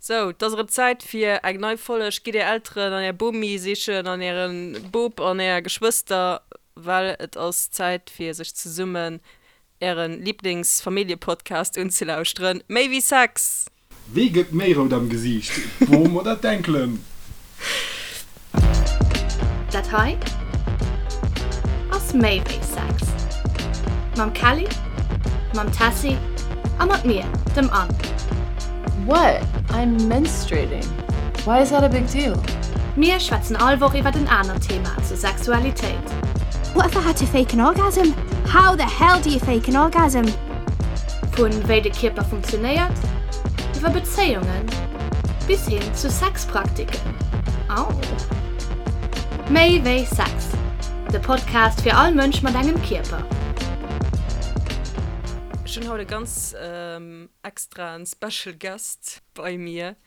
Sou, 't ass erëm Zäit fir eng nei Folleg. Gitt är Elteren an är Bomi sichen an äre Bop an är Geschwëster, well et ass Zäit fir sech zesummen äre Liblingsfamilljepodcast unzelauschteren, Méi wéi Sex! Wee gëtt méi rout am Gesiicht, d'Bom oder d'Enkelen? Dat hei ass méi wéi Sex. Mam Kelly, mam Tessy a mat mir, dem Anne. What? I'm menstruating. Why is that a big deal? Mir schwätzen all Woch iwwert en anert Thema zur Sexualitéit. What if I had to fake an orgasm? How the hell do you fake an orgasm? Vu wéi de Kierper funktionéiert, iwwer Bezéiungen bis hin zu Sexpraktiken. Au! Méi wéi Sex, de Podcast fir all Mënsch mat engem Kierper. Ech hunn haut e ganz extraen Special Guest bei mir,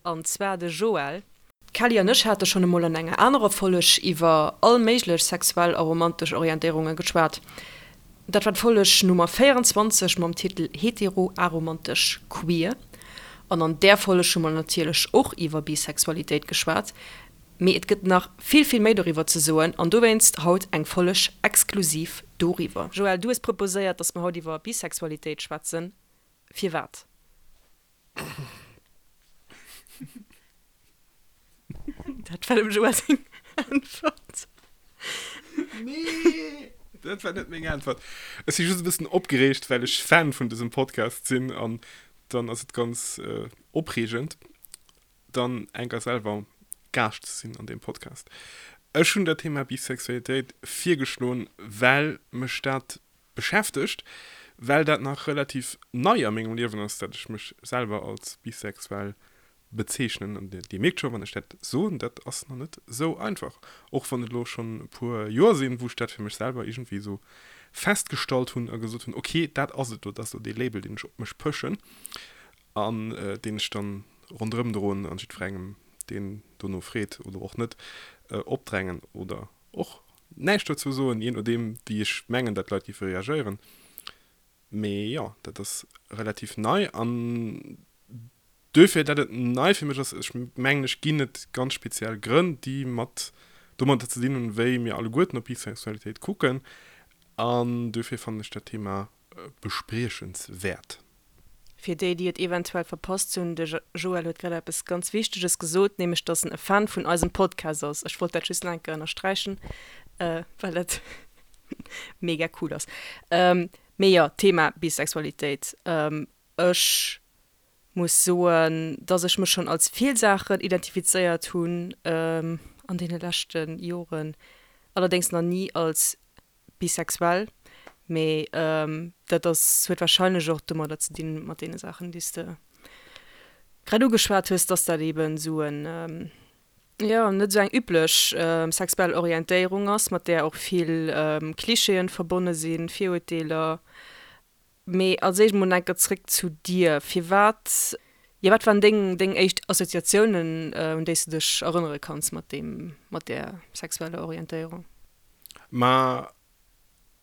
an zwar de Joël. D'Kelly an ech hate schonn emol an enger anerer Folleg iwwer all méiglech sexuell a romantesch Orientéierunge geschwat. Dat war d'Folleg Nummer 24 mam Titel Hetero, aromantesch, queer. An an där Folleg hu mer natierlech och iwwer Bisexualitéit geschwat. Mee et gëtt nach vill, vill méi doriwwer ze soen an dowéinst haut eng Folleg exklusiv doriwwer. Joël, du hues proposéiert, dass mer haut iwwer Bisexualitéit schwätzen. Firwat? Dat war dem Joël seng Äntwert. Nee, dat war net meng Äntwert. Ech si just e bëssen opgereegt, well ech Fan vun dësem Podcast sinn an dann ass et ganz opreegend, dann enker selwer Gaascht ze sinn an deem Podcast. Ech hunn dat Thema Bisexualitéit virgeschloen, well mech dat beschäftegt, well dat nach relativ nei a mengem Liewen ass, dat ech mech selwer als bisexuell bezeechnen. An Dir mierkt scho, wann ech dat soen, dat ass nach net esou einfach, och wann et elo schonn e puer Joer sinn, wou ech dat fir mech selwer iergendwéi esou festgestallt hunn a gesot hunn, ok, dat ass et elo, dat ass elo dee Label, deen ech op mech pëschen an deen ech dann ronderëm droen an jiddwerengem, deen dono freet oder och net, opdrängen oder och näischt dozou soen, jee nodeem wéi ech mengen, dat d'Leit géife reagéieren. Mee jo, dat ass relativ nei an duerfir, dat et nei fir mech ass, ech mengen, ech ginn et ganz speziell Grënn, déi mat domadder ze dinn hunn, wéi mir alleguerten op Bisexualitéit kucken an duerfir fannen ech dat Thema bespriechenswäert. Fir déi, déi et eventuell verpasst hunn, de Joël huet grad eppes ganz Wichteges gesot, nämlech dass en e Fan vun eisem Podcast ass. Ech wollt dat just nach eng Kéier ënnersträichen, well dat mega cool ass. Mee jo, Thema Bisexualitéit. Ech muss soen, dass ech mech schonn als vill Saachen identifizéiert hunn an deene leschte Joren, allerdéngs nach ni als bisexuell, mee dat ass, huet wahrscheinlech och domadder ze dinn, mat deene Saachen, déi s de grad ugeschwat hues, dass dat eeben esou en, jo, net esou eng üblech sexuell Orientéierung ass, mat där och vill Klischeeën verbonne sinn, Virurteeler. Mee als éischt mol enker zréck zu dir. Firwat, jo, wat waren deng, deng éischt Assoziatiounen, un déi s de dech erënnere kanns mat deem, mat där sexueller Orientéierung? Ma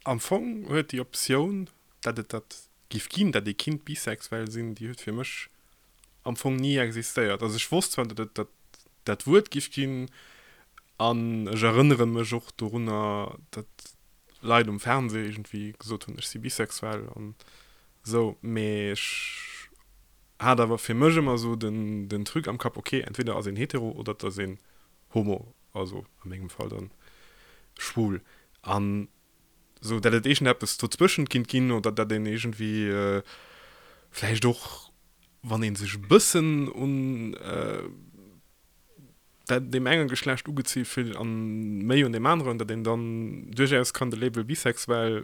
am Fong huet déi Optioun, dat et dat giff ginn, dat ee kinnt bisexuell sinn, déi huet fir mech am Fong ni existéiert. Also ech wosst zwar, dat et dat dat Wuert giff ginn an ech erënnere mech och dorunner, dat Leit um Fernseh iergendwéi gesot hunn, ech si bisexuell an esou, mee ech hat awer fir mech ëmmer esou den den Truc am Kapp, ok, entweder ass een hetero oder et ass een homo, also a mengem Fall dann schwul an esou, dat et iergendeppes dozwëschent kinnt ginn oder dat een iergendwéi vläicht och, wann ee sech e bëssen un dat deem enge Geschlecht ugezi fillt an méi un deem aneren, datt een dann duerchaus kann de Label bisexuell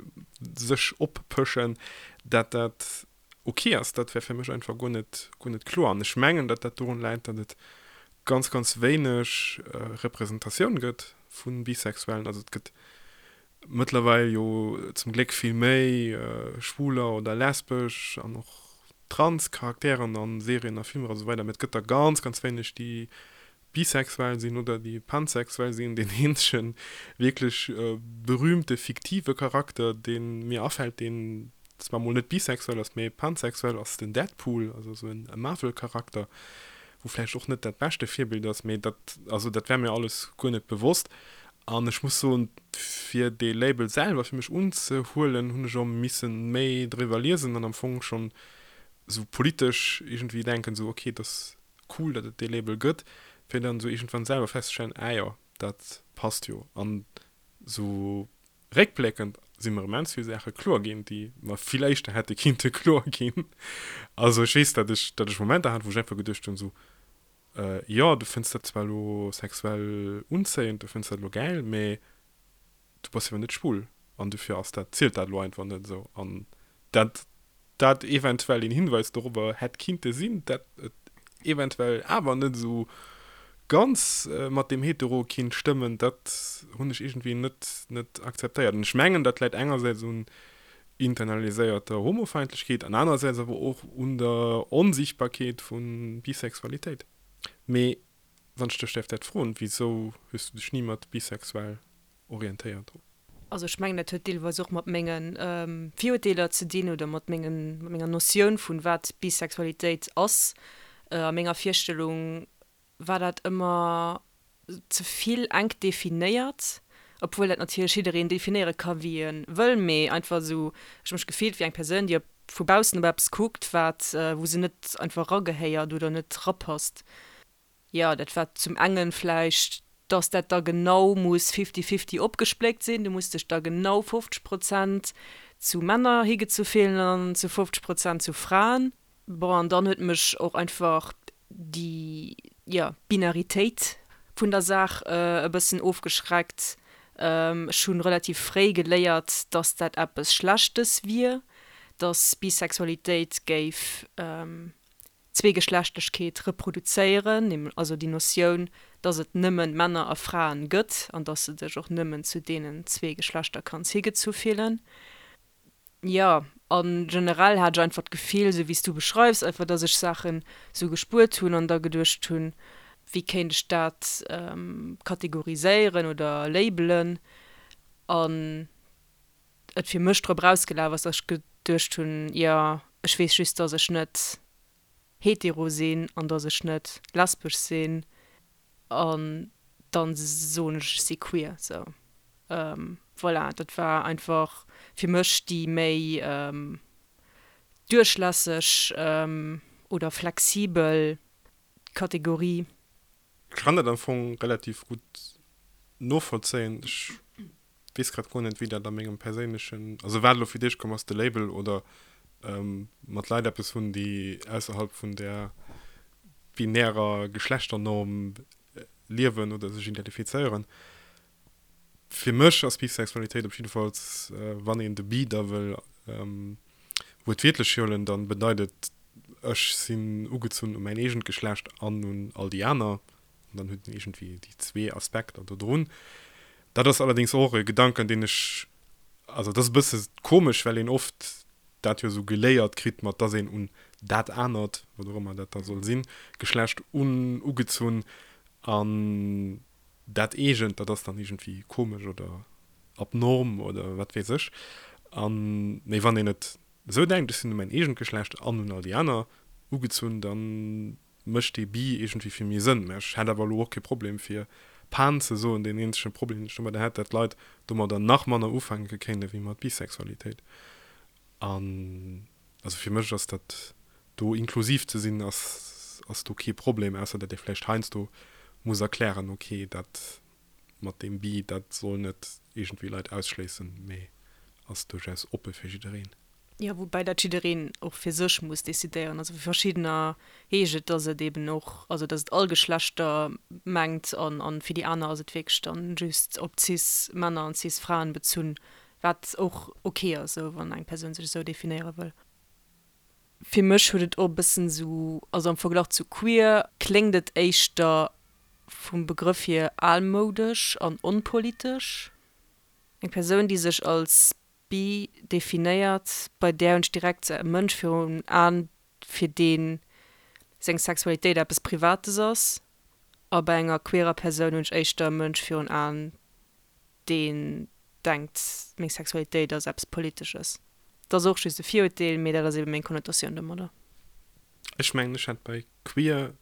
sech oppëschen, dat dat ok ass, dat wär fir mech einfach guer net, guer net kloer. An ech mengen, datt dat dorun läit, datt et ganz, ganz wéineg Representatioun gëtt vu Bisexuellen. Also et gëtt mëttlerweil jo zum Gléck vill méi schwuler oder lesbesch an och trans Charakteren a Serien a Filmer a sou weider, mee et gëtt der ganz, ganz wéineg, déi bisexuell sinn oder déi pansexuell sinn. Deen eenzege wierklech berühmte fiktive Charakter, dee mir afält, deen zwar mol net bisexuell ass, mee pansexuell, ass den Deadpool, also sou e Marvel-Charakter. wou vläicht och net dat beschte Virbild ass, mee dat, also dat war mir alles guer net bewosst. An ech muss soen, fir dee Label selwer fir mech unzehuelen, hunn ech och misse méi driwwer liesen an am Fong schonn esou politesch iergendwéi denken, esou ok, et ass cool, datt et dee Label gëtt, fir dann esou iergendwann selwer festzestellen, ah jo, dat passt jo. An esou réckbléckend si mer immens vill Saache kloer ginn, déi mer vill éischter hätte kinnte kloer ginn. Also ech weess, datt ech, datt ech Momenter hat, wou ech einfach geduecht hunn, esou, jo, du fënns dat zwar elo sexuell unzéiend, du fënns dat elo gäil, mee du bass jo awer net schwul an dofir ass dat, zielt dat elo einfach net esou. An dat dat eventuell een Hinweis dorobber hätt kinnte sinn, dat et eventuell awer net esou ganz mat deem Hetero kinnt stëmmen, dat hunn ech iergendwéi net net akzeptéiert. An ech mengen, dat läit engersäits un internaliséierter Homofeindlechkeet an anerersäits awer och un der Onsiichtbarkeet vu Bisexualitéit. Mee wann ech dech däerf dat froen, wisou hues du dech ni mat bisexuell orientéiert? Also ech mengen, dat huet deelweis och mat menge Virurteeler ze dinn oder mat mengen, mat menger Notioun vun wat Bisexualitéit ass. A menger Virstellung war dat ëmmer ze vill enk definéiert, obwuel dat natierlech jiddereen definéiere ka wéi e wëll, mee einfach esou, ech hu mech gefillt wéi eng Persoun, déi op vu baussen op eppes kuckt, wat, wou se net einfach eragehéiert oder net rapasst. Jo, dat war zum engen vläicht, dass dat da genau muss fifty-fifty opgespléckt sinn, du muss dech da genau 50 Prozent zu Männer higezu fillen an zu 50 Prozent zu Fraen. Bon, an dann huet mech och einfach déi, jo, Binaritéit vun der Saach e bëssen ofgeschreckt. Ech hu relativ fréi geléiert, dass dat eppes Schlechtes wier, dass Bisexualitéit géif Zweegeschlechtlechkeet reproduzéieren, also déi Notioun, dass et nëmmen Männer a Fraen gëtt an dass de dech och nëmmen zu deenen zwee Geschlechter kanns higezu fillen. Jo, a generell hat ech einfach d'Gefill, esou wéi s du beschreifs, einfach dass ech Saachen esou gespuert hunn an da geduecht hunn, wéi kéint ech dat kategoriséieren oder labelen an et fir mech drop erausgelaf ass, dass ech geduecht hunn, jo, ech weess just, dass ech net hetero sinn an dass ech net lesbesch sinn an dann soen ech, ech si queer. Sou, voilà, dat war einfach fir mech déi méi duerchlässeg oder flexibel Kategorie. Ech kann dat am Fong relativ gutt novollzéien. Ech weess grad guer net, wéi dat a mengem perséinlechen, also wat elo fir d'éischt komm ass, de Label oder mat Leit eppes hunn, déi ausserhalb vun där binärer Geschlechternorm liewen oder sech identifizéieren. Fir mech ass Bisexualitéit op jiddefalls, wann een de bi da wëll wuertwiertlech huelen, da bedeit et, ech sinn ugezunn u mäin eegent Geschlecht an un all déi aner. An dann huet en iergendwéi déi zwee Aspekter do drun. Dat ass allerdéngs och e Gedanken, deen ech, also dat ass e bësse komesch, well een oft dat jo esou geléiert kritt, mat dass een un dat anert, wat och ëmmer dat da soll sinn, Geschlecht un ugezunn an dat eegent, dat ass dann iergendwéi komesch oder abnorm oder wat weess ech. An, mee wann een et esou denkt, ech sinn u mäin eegent Geschlecht an un all déi aner ugezunn, dann mécht dee bi iergendwéi vill méi Sënn. Mä ech hätt awer elo och kee Problem fir Pan ze soen. Deen eenzege Problem, deen ech domadder hätt, dat d'Leit domadder nach manner ufänke kéinte wéi mat Bisexualitéit. An also fir mech ass dat do inklusiv ze sinn ass ass do kee Problem, ausser dat ee vläicht heiansdo muss erklären, ok dat mat deem bi, dat soll net iergendwéi Leit ausschléissen, mee ass duerchaus oppe fir jiddereen. Jo, woubäi dat jiddereen och fir sech muss decidéieren. Also fir verschiddener heescht et, datt et eben och, also datt et all Geschlechter mengt an an fir déi aner ass et wierklech dann just op cis Männer an cis Fraen bezunn, wat och ok ass, esou wann eng Persoun sech esou definéiere wëll. Fir mech huet et och e bëssen esou, also am Verglach zu queer kléngt et éischter vum Begrëff hier almoudesch an onpolitesch. Eng Persoun, déi sech als bi definéiert, bei där hunn ech direkt e Mënsch virun Aen, fir dee seng Sexualitéit eppes Privates ass, a bei enger queerer Persoun hunn ech éischter e Mënsch virun Aen, deen denkt, meng Sexualitéit ass eppes Politesches. Dat ass och just e Virurteel, mee dat ass ebe meng Konnotatioun domadder. Ech mengen, ech hätt bei queer.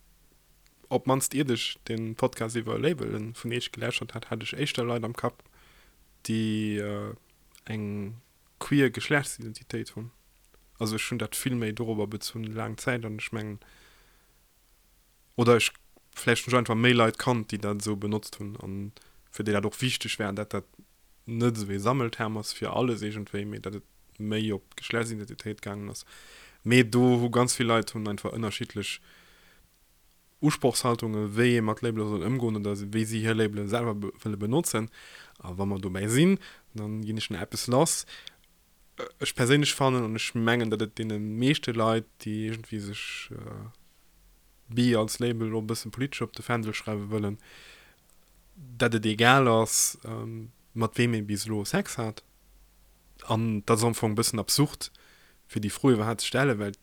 op d'mannst iert ech de Podcast iwwer Labelen vun Iech geläuschtert hat, hat ech éischter Leit am Kapp, déi eng queer Geschlechtsidentitéit hunn. Also ech hunn dat vill méi dorobber bezunn laang Zäit an ech mengen, oder ech, vläicht hunn ech einfach méi Leit kannt, déi dat esou benotzt hunn an fir déi dat och wichteg war, dat dat net esou ee Sammelterm ass fir alles iergendwéi, mee dat et méi op d'Geschlechtsidentitéit gaangen ass. Mee do hu ganz vill Leit hunn einfach ënnerschiddlech Usprochshaltungen, wéi ee mat Labele soll ëmgoen oder wéi si hir Labele selwer wëlle benotzen. A wa mer dobäi sinn, da ginn ech nach eppes lass. Ech perséinlech fannen, an ech mengen, datt et deene meeschte Leit, déi iergendwéi sech bi als Label och e bësse politesch op de Fändel schreiwe wëllen, datt et egal ass, mat weem ee bis elo Sex hat. An dat ass am Fong e bëssen absurd, fir déi Fro iwwerhaapt ze stellen, well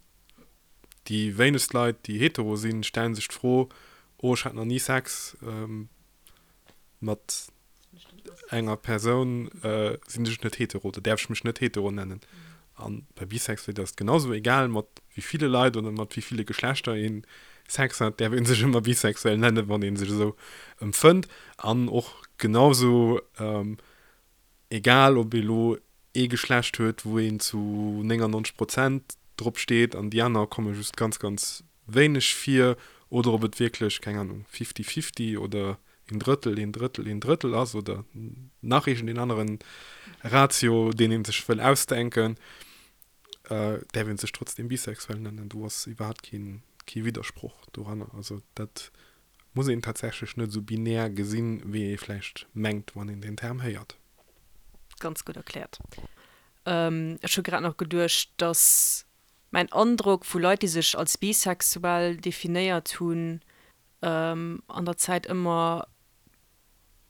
déi wéinegst Leit, déi hetero sinn, stellen sech d'Fro, Oh, ech hat nach ni Sex mat enger Persoun, sinn ech net hetero oder däerf ech mech net hetero nennen? A bei Bisexualitéit ass et genau esou, egal mat wéi ville Leit oder mat wéi ville Geschlechter ee Sex hat, däerf ee sech ëmmer bisexuell nennen, wann ee sech esou empfënnt. An och genau esou, egal ob ee lo ee Geschlecht huet, wou een zu 99 Prozent drop steet an déi aner komme just ganz, ganz wéineg vir, oder ob et wierklech, keng Ahnung, fifty-fifty oder een Drëttel, een Drëttel, een Drëttel ass oder nach iergendeen aneren Ratio, deen ee sech wëll ausdenken, däerf ee sech trotzdeem bisexuell nennen. Do ass iwwerhaapt kee, kee Widdersproch doranner. Also dat muss een tatsächlech net esou binär gesinn, wéi ee vläicht mengt, wann een deen Term héiert. Ganz gutt erkläert. Ech hu grad nach geduecht, dass mäin Androck vu Leit, déi sech als bisexuell definéiert hunn, an der Zäit ëmmer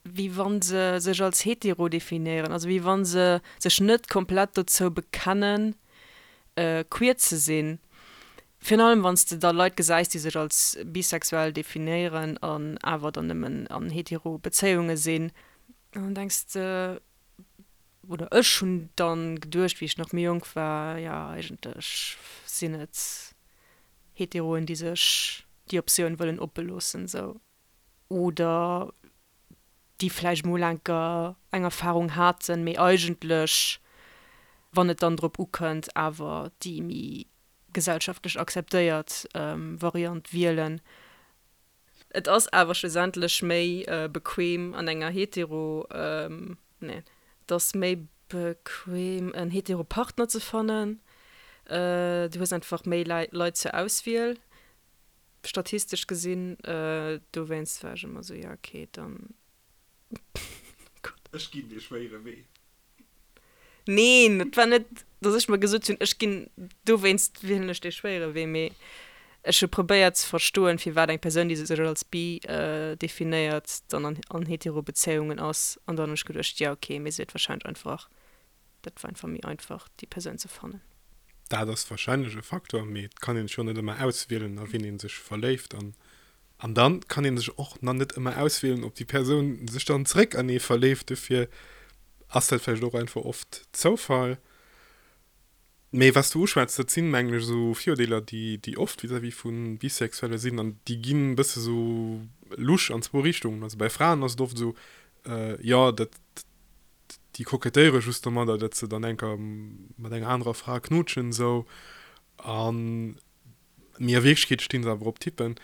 wéi wa se sech als hetero definéieren, also wéi wa se sech net komplett dozou bekennen, queer ze sinn. Virun allem wann s de da Leit gesäis, déi sech als bisexuell definéieren an awer dann nëmmen an hetero Bezéiunge sinn, an dann denks de, oder ech hunn dann geduecht, wéi ech nach méi jonk war, jo eigentlech sinn et Heteroen, déi sech déi Optioun wëllen oppe loossen, sou, oder déi vläicht mol enker eng Erfarung haten, mee eigentlech, wann et dann drop ukënnt, awer déi méi gesellschaftlech akzeptéiert Variant wielen. Et ass awer schlussendlech méi bequem an enger hetero, nee, et ass méi bequem en hetero Partner ze fannen. Du hues einfach méi Leit zur Auswiel, statistesch gesinn. Dowéinst war ech ëmmer esou, ja okay, dann, oh Gott. Ech ginn dee schwéiere Wee. Neen, et war net, datt ech mer gesot hunn, ech ginn, dowéinst wielen ech dee schwéiere Wee, mee ech hu probéiert ze verstoen, firwat eng Persoun, déi sech als bi definéiert, dann an an hetero Bezéiungen ass. An dann hunn ech geduecht, jo okay, mee se huet warscheinlech einfach, dat war einfach méi einfach, déi Persoun ze fannen. Dat ass warscheinlech e Faktor, mee et kann een sech jo net ëmmer auswielen, a wien ee sech verléift. An An dann kann een sech och nach net ëmmer auswielen, ob déi Persoun sech dann zréck an ee verléift. Dofir ass dat vläicht och einfach oft Zoufall. Mee wat s du uschwätz, dat sinn, mengen ech, esou Virurdeeler, déi, déi oft vis-à-vis vu Bisexuelle sinn an déi ginn e bësse sou lusch an zwou Richtungen. Also bei Fraen ass et oft esou, jo, dat, déi kokettéiere just domadder, datt se dann enker mat enger anerer Fra knutschen esou. An Mee a Wierklechkeet stinn se awer op Typen.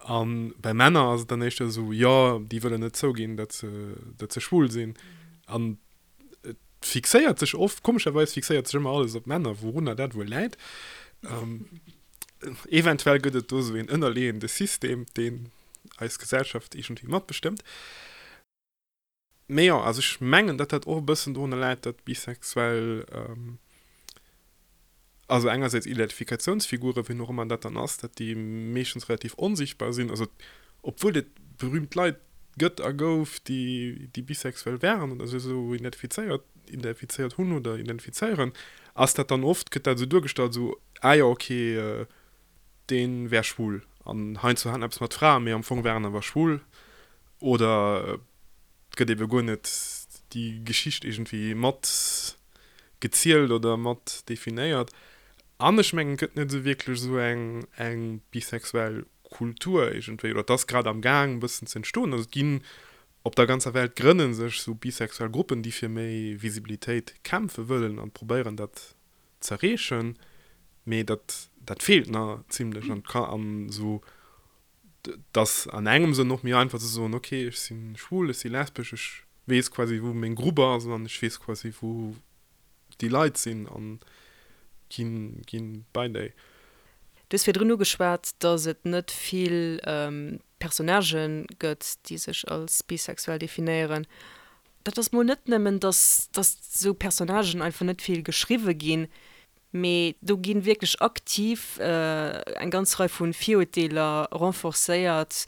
A bei Männer ass et dann éischter esou, jo, déi wëllen net zouginn, datt se, datt se schwul sinn. An et fixéiert sech oft, komescherweis fixéiert sech ëmmer alles op Männer, wourunner dat wuel läit. Eventuell gëtt et do esou een ënnerleeënde System, deen eis Gesellschaft iergendwéi matbestëmmt. Mee jo, also ech mengen, datt dat och e bëssen dorunner läit, datt bisexuell, also engersäits Identifikatiounsfiguren, wien och ëmmer dat dann ass, datt déi meeschtens relativ onsichtbar sinn. Also obwuel et berühmt Leit gëtt a gouf, déi, déi bisexuell waren oder sech esou identifizéiert, identifizéiert hunn oder identifizéieren, ass dat dann oft, gëtt dat esou duergestallt, esou, ah jo, okay, dee wär schwul an heiansdo hat en eppes mat Fraen, mee am Fong war en awer schwul oder et gëtt ebe guer net déi Geschicht iergendwéi mat gezielt oder mat definéiert. An ech mengen, et gëtt net esou wierklech esou eng eng bisexuell. Kultur iergendwéi, oder et ass grad am Gaang e bëssen ze entstoen. Also et ginn op der ganzer Welt grënne sech sou bisexuell Gruppen, déi fir méi Visibilitéit kämpfe wëllen an probéieren dat z'erreechen, mee dat dat feelt nach zimlech an ka an sou et ass an engem Sënn och méi einfach ze soen, ok ech si schwul, ech si lesbesch, ech weess quasi wou meng Grupp ass an ech weess quasi wou déi Leit sinn an ginn ginn bei déi. Du hues virdrun ugeschwat, datt et net vill Personnagen gëtt, déi sech als bisexuell definéieren. Dat ass mol net nëmmen, datt datt esou Personnagen einfach net vill geschriwwe ginn, mee do gi wierklech aktiv eng ganz Rei vu Virurteeler renforcéiert.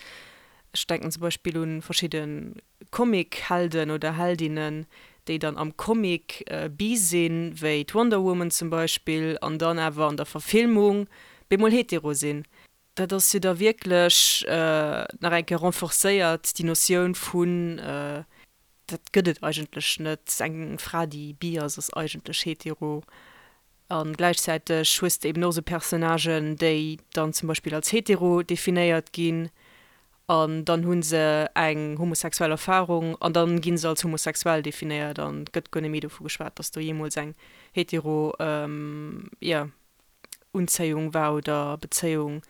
Ech denken zum Beispill u verschidde Comic-Helden oder Heldinnen, déi dann am Comic bi sinn, wéi d'Wonder Woman zum Beispill, an dann awer an der Verfilmung bemol hetero sinn. Dat ass jo da wierklech nach eng Kéier renforcéiert, déi Notioun vun, dat gëtt et eigentlech net, eng Fra, déi bi ass, ass eigentlech hetero. A gläichzäiteg hues de eben och esou Personnagen, déi dann zum Beispill als hetero definéiert ginn an dann hu se eng homosexuell Erfarung an dann gi se als homosexuell definéiert an et gëtt guer net méi dovu geschwat, datt do jeemools eng hetero, jo, Unzéiung war oder Bezéiung.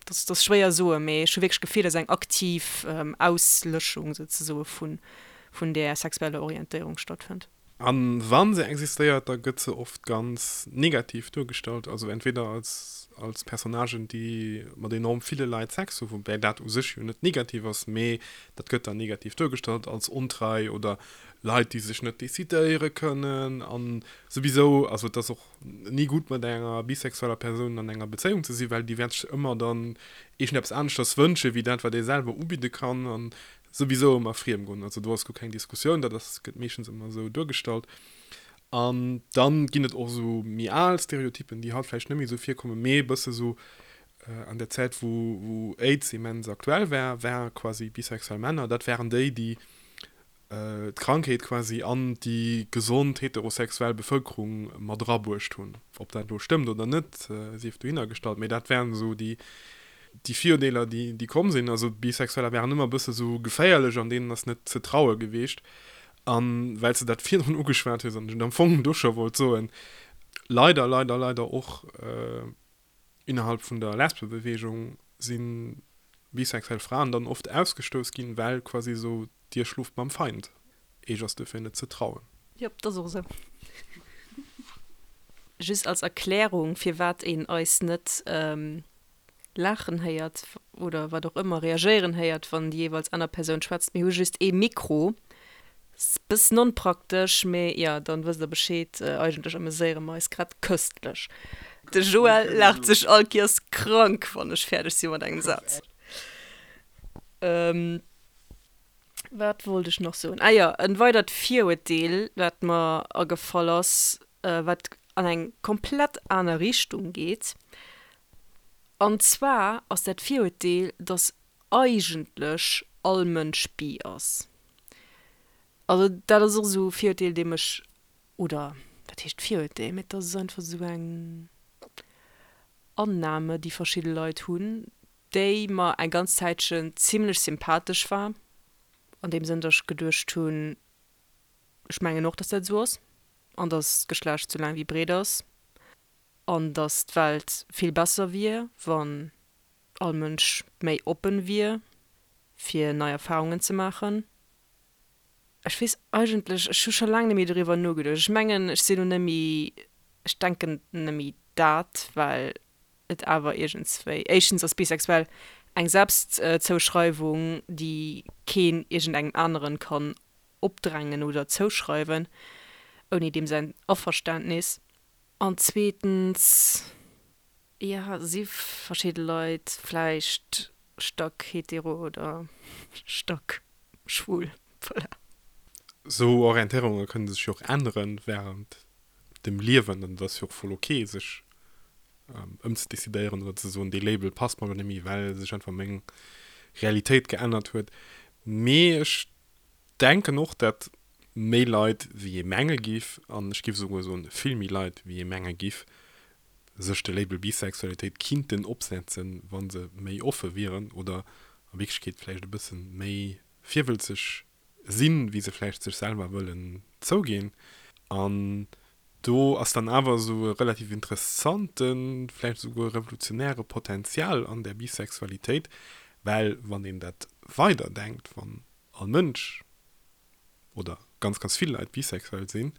Dat ass schwéier soen, mee ech hu wierklech d'Gefill, datt eng aktiv Auslöschung souzesoe vun där sexueller Orientéierung stattfënnt. A wa se existéiert, da gëtt se oft ganz negativ duergestallt, also entweder als als Personnagen, déi mat enorm ville Leit Sex hu, woubäi dat u sech jo net negativ ass, mee dat gëtt dann negativ duergestallt als ontrei oder Leit, déi sech net decidéiere kënnen a souwisou. Also et ass och ni gutt mat enger bisexueller Persoun an enger Bezéiung ze sinn, well déi wäert sech ëmmer dann iergendeppes aneschters wënsche wéi dat, wat ee selwer ubidde kann. An souwisou ëmmer friem goen. Also do ass guer keng Diskussioun, dat ass, gëtt meeschtens ëmmer esou duergestallt. An dann ginn et och esou méi al Stereotypen, déi haut vläicht net méi esou virkommen, mee e bësse sou an der Zäit, wou, wou Aids immens aktuell war, war quasi bisexuell Männer, dat waren déi, déi d'Krankheet quasi an déi gesond heterosexuell Bevëlkerung mat erabruecht hunn. Ob dat elo stëmmt oder net, sief dohinner gestallt, mee dat waren esou déi, déi Virurdeeler, déi, déi komm sinn. Also Bisexueller waren ëmmer e bësse sou geféierlech an deenen ass net ze traue gewiescht. A well s de dat virdrun ugeschwat hues an ech et am Fong do scho wollt soen, leider, leider, leider och innerhalb vun der Lesbebeweegung si bisexuell Fraen dann oft ausgestouss ginn, well quasi esou Dir schloft mam Feind, Eech ass duerfir net ze trauen. Jop, dat ass och esou. Just als Erklärung, firwat een eis net laachen héiert oder wat och ëmmer, reagéieren héiert, wann déi jeeweils aner Persoun schwätzt. Mir hu just ee Mikro. Ass bëssen onpraktesch, mee jo, dann wësst der Bescheed. Eigentlech ameséiere mer eis grad köstlech. De Joël laacht sech all Kiers krank, wann ech fäerdeg si mat engem Saz. Wat wollt ech nach soen? Ah jo, en weidert Virurteel, wat mer agefall ass, wat an eng komplett aner Richtung geet. An zwar ass dat Virurteel, dass eigentlech all Mënsch bi ass. Also dat ass och esou e Virurteel, dee mech, oder wat heescht Virurteel, mee et ass einfach esou eng Annahme, déi verschidde Leit hunn, déi mer eng ganz Zäitchen zimlech sympathesch war, an deem Sënn, datt ech geduecht hunn, ech mengen och, datt dat esou ass an datt d'Geschlecht sou laang wéi breet ass an datt d'Welt vill besser wier, wann all Mënsch méi oppen wier, fir nei Erfarungen ze maachen. Ech weess eigentlech, ech hu scho laang net méi doriwwer nogeduecht. Ech mengen, ech sinn elo net méi, ech denken net méi dat, well et awer iergendswéi, éischtens ass bisexuell eng Selbstzouschreiwung, déi keen iergendengem aneren kann opdrängen oder zouschreiwen, ouni deem säin Averständnis. An zweetens, jo, si verschidde Leit vläicht stack hetero oder stack schwul, voilà. Sou Orientéierunge kënne sech jo och änneren während dem Liewen an et ass jo och voll ok sech ëmzedecidéieren oder ze soen, dee Label passt mer elo net méi, well sech einfach meng Realitéit geännert huet. Mee ech denken och, dat méi Leit wéi ee menge giff, an ech giff esouguer soen vill méi Leit wéi ee menge giff, sech de Label Bisexualitéit kinnten opsetzen, wa se méi offe wieren oder a Wierklechkeet vläicht e bësse méi virwëlzeg sinn, wéi se vläicht sech selwer wëllen zouginn. An do ass dann awer esou e relativ interessanten, vläicht esouguer revolutionäre Potenzial an där Bisexualitéit, well wann een dat weiderdenkt, wann all Mënsch oder ganz, ganz vill Leit bisexuell sinn,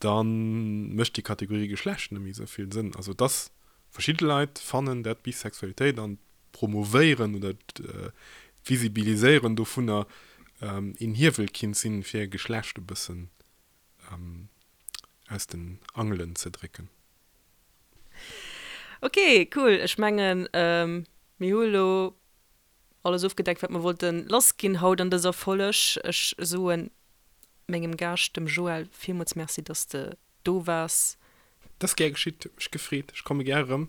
da mécht déi Kategorie Geschlecht net méi esou vill Sënn. Also dass verschidde Leit fannen dat Bisexualitéit an d'Promovéieren oder d'Visibiliséieren dovunner een Hiewel kinnt sinn, fir Geschlecht e bëssen aus den Angelen ze drécken. Ok, cool. Ech mengen, mir hu elo alles ofgedeckt, wat mer wollten lassginn haut an dëser Folleg. Ech soen mengem Gaascht, dem Joël, villmools Merci, dass de do waars. Dat ass gär geschitt, huet mech gefreet, ech komme gär erëm.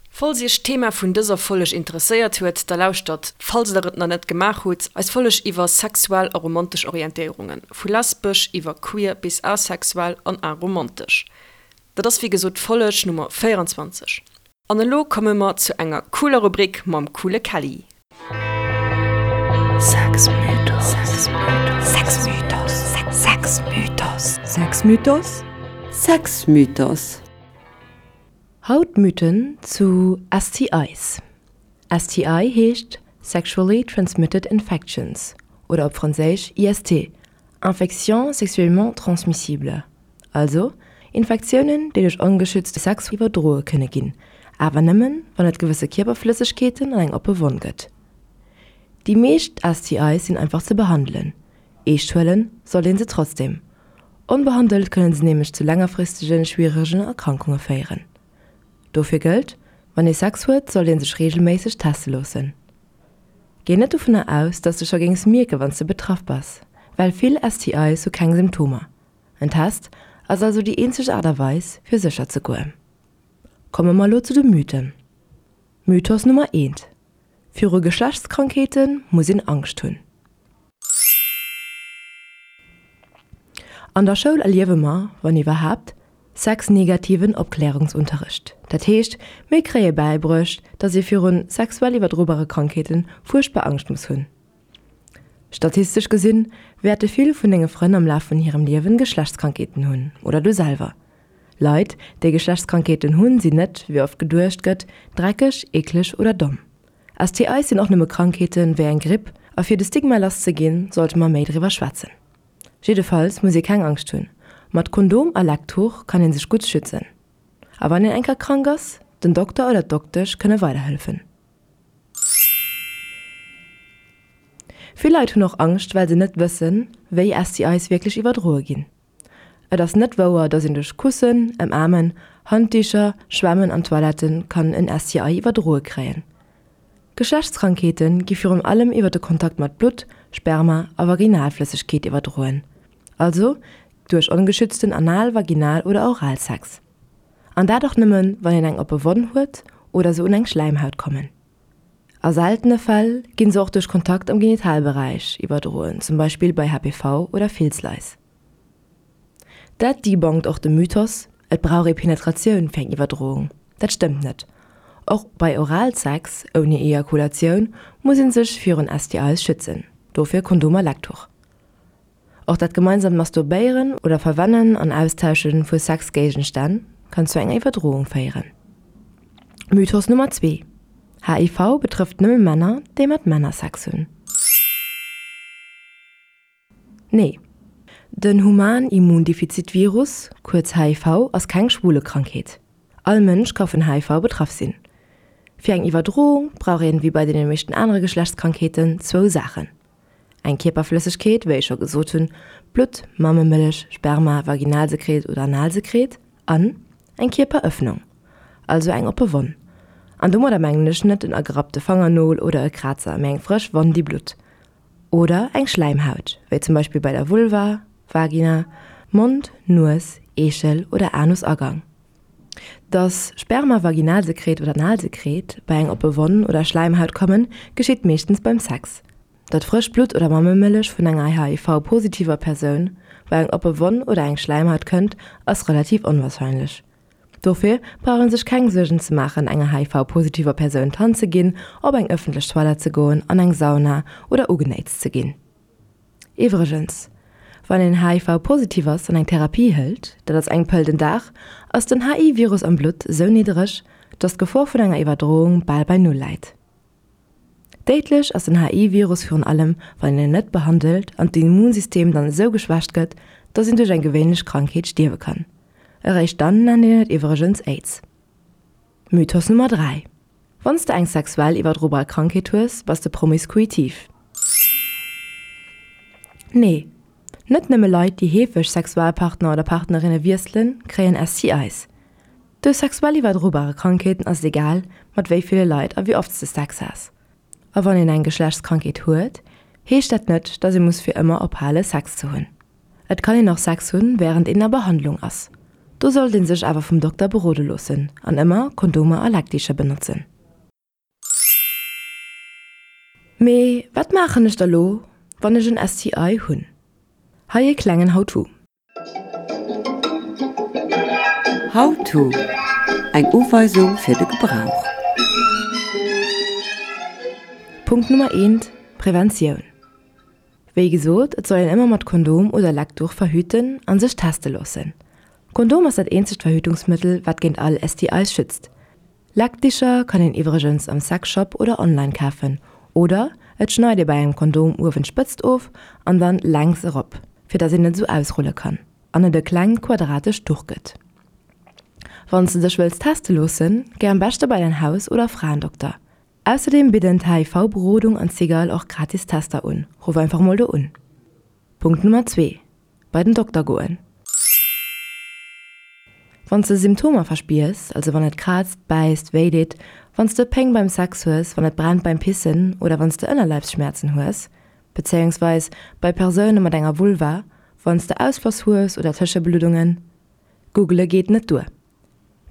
Falls iech d'Thema vun dëser Folleg interesséiert huet, da lauschtert, falls der et nach net gemaach hutt, eis Folleg iwwer sexuell a romantesch Orientéierungen, vu lesbesch iwwer queer bis asexuell an aromantesch. Dat ass wéi gesot d'Folleg Nummer 24. An elo komme mer zu enger cooler Rubrik mam coole Kelly. Sexmythos Sexmythos Sexmythos Sexmythos Sexmythos Haut Mythen zu STIs. STI heescht Sexually Transmitted Infections oder op Franséisch IST, Infections sexuellement transmissibles, also Infektiounen, déi duerch ongeschützte Sex iwwerdroe kënne ginn, awer nëmmen, wann et gewësse Kierperflëssegkeeten an eng oppe Wonn gëtt. Déi meescht STIs sinn einfach ze behandelen, eescht huele sollt een se trotzdeem. Onbehandelt kënne se nämlech zu längerfristege schwieregen Erkrankunge féieren. Dofir gëllt, Wann ee Sex huet, sollt ee sech reegelméisseg teste loossen. Géi net dovunner aus, dass de scho géings mierke wann s de betraff bass, well vill STIs hu keng Symptomer. En Test ass also déi eenzeg Aart a Weis fir sécher ze goen. Komme mer elo zu de Mythen. Mythos Nummer eent, Viru Geschlechtskrankheete muss een Angscht hunn. An der Schoul erliewe mer, wann iwwerhaapt, sexnegativen Opklärungsunterricht. Dat heescht, mir kréie bäibruecht, dass ee virun sexuell iwwerdrobare Krankheete fuerchtbar Angscht muss hunn. Statistesch gesinn, wäerte vill vun denge Frënn am Laf vun hirem Liewen Geschlechtskrankheeten hunn, oder du selwer. Leit, déi Geschlechtskrankheeten hunn, sinn net, wéi oft geduecht gëtt, dreckeg, eekleg oder domm. STIs sinn och nëmme Krankheeten, wéi eng Gripp, a fir de Stigma lass ze ginn, sollte mer méi driwwer schwätzen. Jiddefalls muss ee keng Angscht hunn, mat Kondom a Lecktuch kann ee sech gutt schützen. A wann een eng Kéier krank ass, den Dokter oder d'Doktesch kënne weiderhëllefen. Vill Leit hunn och Angscht, well se net wëssen, wéi STIs wierklech iwwerdroe ginn. Et ass net wouer, dass een duerch Kussen, Ëmaarmen, Handdicher, Schwämmen an Toilette kann en STI iwwerdroe kréien. Geschlechtskrankheete gi virun allem iwwer de Kontakt mat Blutt, Sperma a Vaginalflëssegkeet iwwerdroen, also duerch ongeschützten Anal-, Vaginal oder Oralsex. An dat och nëmmen, wann een eng oppe Wonn huet oder se un eng Schläimhaut kommen. A seltene Fäll ginn se och duerch Kontakt am Genitalberäich iwwerdroen, zum Beispill bei HPV oder Filzlais. Dat debunkt och de Mythos, et brauch ee Penetratioun fir eng Iwwerdroung. Dat stëmmt net. Och bei Oralsex ouni Ejakulatioun muss ee sech virun STIs schützen, dofir Kondom a Lecktuch. Och dat gemeinsamt Masturbéieren oder Verwennen an Austausche vu Sexgéigenstänn kann zu enger Iwwerdroung féieren. Mythos Nummer 2, HIV betrëfft nëmme Männer, déi mat Männer Sex hunn. Nee. Den Human-Immundefizit-Virus, kuerz HIV, ass keng Schwulekrankheet. All Mënsch ka vun HIV betraff sinn. Fir eng Iwwerdroung brauch een, wéi bei deene meeschten anere Geschlechtskrankheeten, zwou Saachen, Eng Kierperflëssegkeet, wéi ech scho gesot hunn, Blutt, Mammemëllech, Sperma, Vaginalsekret oder Analsekret, an eng Kierperëffnung, also eng oppe Wonn. An domadder mengen ech net en agerappte Fangernol oder e Krazer, mee eng frësch Wonn, déi blutt. Oder eng Schläimhaut, wéi zum Beispill bei der Vulva, Vagina, Mond, Nues, Eechel oder Anusagang. Dass Sperma, Vaginalsekret oder Analsekret bei eng oppe Wonn oder Schläimhaut kommen, geschitt meeschtens beim Sex. Datt frëscht Blutt oder Mammemëllech vun enger HIV-positiver Persoun bei eng oppe Wonn oder eng Schläimhaut kënnt, ass relativ onwarscheinlech. Dofir brauch een sech keng Suergen ze maachen, enger HIV-positiver Persoun d'Hand ze ginn, op eng ëffentlech Toilette ze goen, an eng Sauna oder ugenéitst ze ginn. Iwwregens, Wann een HIV-positiv ass an eng Therapie hëlt, dat ass eng Pëll den Dag, ass den HI-Virus am Blutt esou niddereg, dass d'Gefor vun enger Iwwerdroung bal bei Null läit. Déidlech ass den HI-Virus virun allem, wann een en net behandelt an d'Immunsystem dann esou geschwächt gëtt, dass een duerch eng gewéinlech Krankheet stierwe kann. Eréischt dann nennt een et iwwregens Aids. Mythos Nummer 3, Wann s de eng sexuell iwwerdrobar Krankheet hues, bass de promiskuitiv. Nee, net nëmme Leit, déi heefeg Sexualpartner oder Partnerinne wiesselen, kréien STIs. Duerch sexuell iwwerdrobare Krankheeten ass et egal, mat wéi ville Leit a wéi oft s de Sex has. A wann een eng Geschlechtskrankheet huet, heescht dat net, dass ee muss fir ëmmer ophale Sex ze hunn. Et kann een och Sex hunn, wärend een a Behandlung ass. Do sollt een sech awer vum Dokter berode loossen an ëmmer Kondomer a Leckdicher benotzen. Mee wat maachen ech da lo, wann ech en STI hunn? Hei e klengen How-to. How-to, Eng Uweisung fir de Gebrauch. Punkt Nummer eent, Preventioun. Wéi gesot, et soll een ëmmer mat Kondom oder Leckduch verhüten an sech teste loossen. Kondom ass dat eenzegt Verhütungsmëttel wat géint all STIs schützt. Leckdicher kann een iwwregens am Sexshop oder online kafen oder et schneit ee bei engem Kondom uewen d'Spëtzt of an dann längs erop fir dass een et esou ausrulle kann an et e klengt quadratescht Duch gëtt. Wanns de dech wëlls teste loossen, géi am beschte bei däin Haus oder Fraendokter. Ausserdeem bidden d'HIV-Berodung an d'Cigale och gratis Tester un. Ruff einfach mol do un. Punkt Nummer 2, Bei den Dokter goen. Wann s de Symptomer verspiers, also wann et kraazt, bäisst, wéi deet, wann s de Péng beim Sex hues, wann et brennt beim Pissen oder wann s de Ënnerleibsschmäerzen hues, bezéiungsweis bei Persoune mat enger Vulva, wann s de Ausfloss hues oder Tëschebluddungen. Googele geet net duer.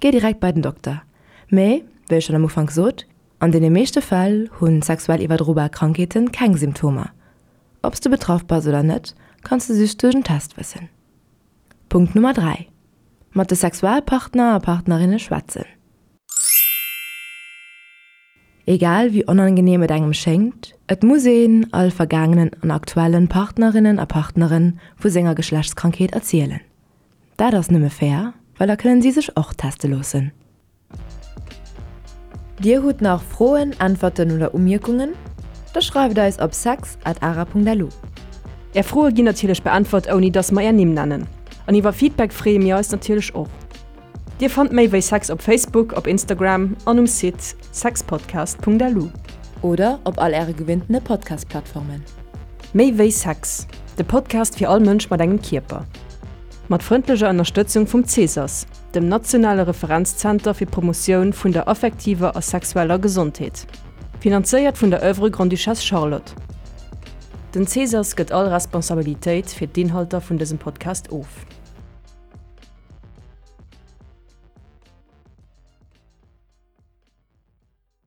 Géi direkt bei den Dokter. Mee, wéi ech schonn am Ufank sot, an deene meeschte Fäll hu sexuell iwwerdrobar Krankheete keng Symptomer. Ob s de betraff bass oder net, kanns de just duerch en Test wëssen. Punkt Nummer 3, Mat de Sexualpartner a Partnerinne schwätzen. Egal wéi onangeneem et engem schéngt, et muss een all vergaangenen an aktuellen Partnerinnen a Partneren vu senger Geschlechtskrankheet erzielen. Dat ass nëmme fair, well da kënnen si sech och teste loossen. Dir hutt nach Froen, Äntwerten oder Umierkungen? Da schreift eis op sex at ara.lu. Är Froe ginn natierlech beäntwert ouni dass mer är Nimm nennen. An iwwer Feedback freeë mir eis natierlech och. Dir fannt méi wéi Sex op Facebook, op Instagram an um Site sexpodcast.lu. Oder op all äre gewinntene Podcast-Plattformen. Méi wéi Sex, de Podcast fir all Mënsch mat engem Kierper. Mat frëndlecher Ënnerstëtzung vum Cesas, dem nationale Referenzzenter fir d'Promotioun vun der affektiver a sexueller Gesondheet. Finanzéiert vun der Oeuvre Grande-Duchesse Charlotte. Den Cesas gëtt all Responsabilitéit fir d'Inhalter vun dësem Podcast of.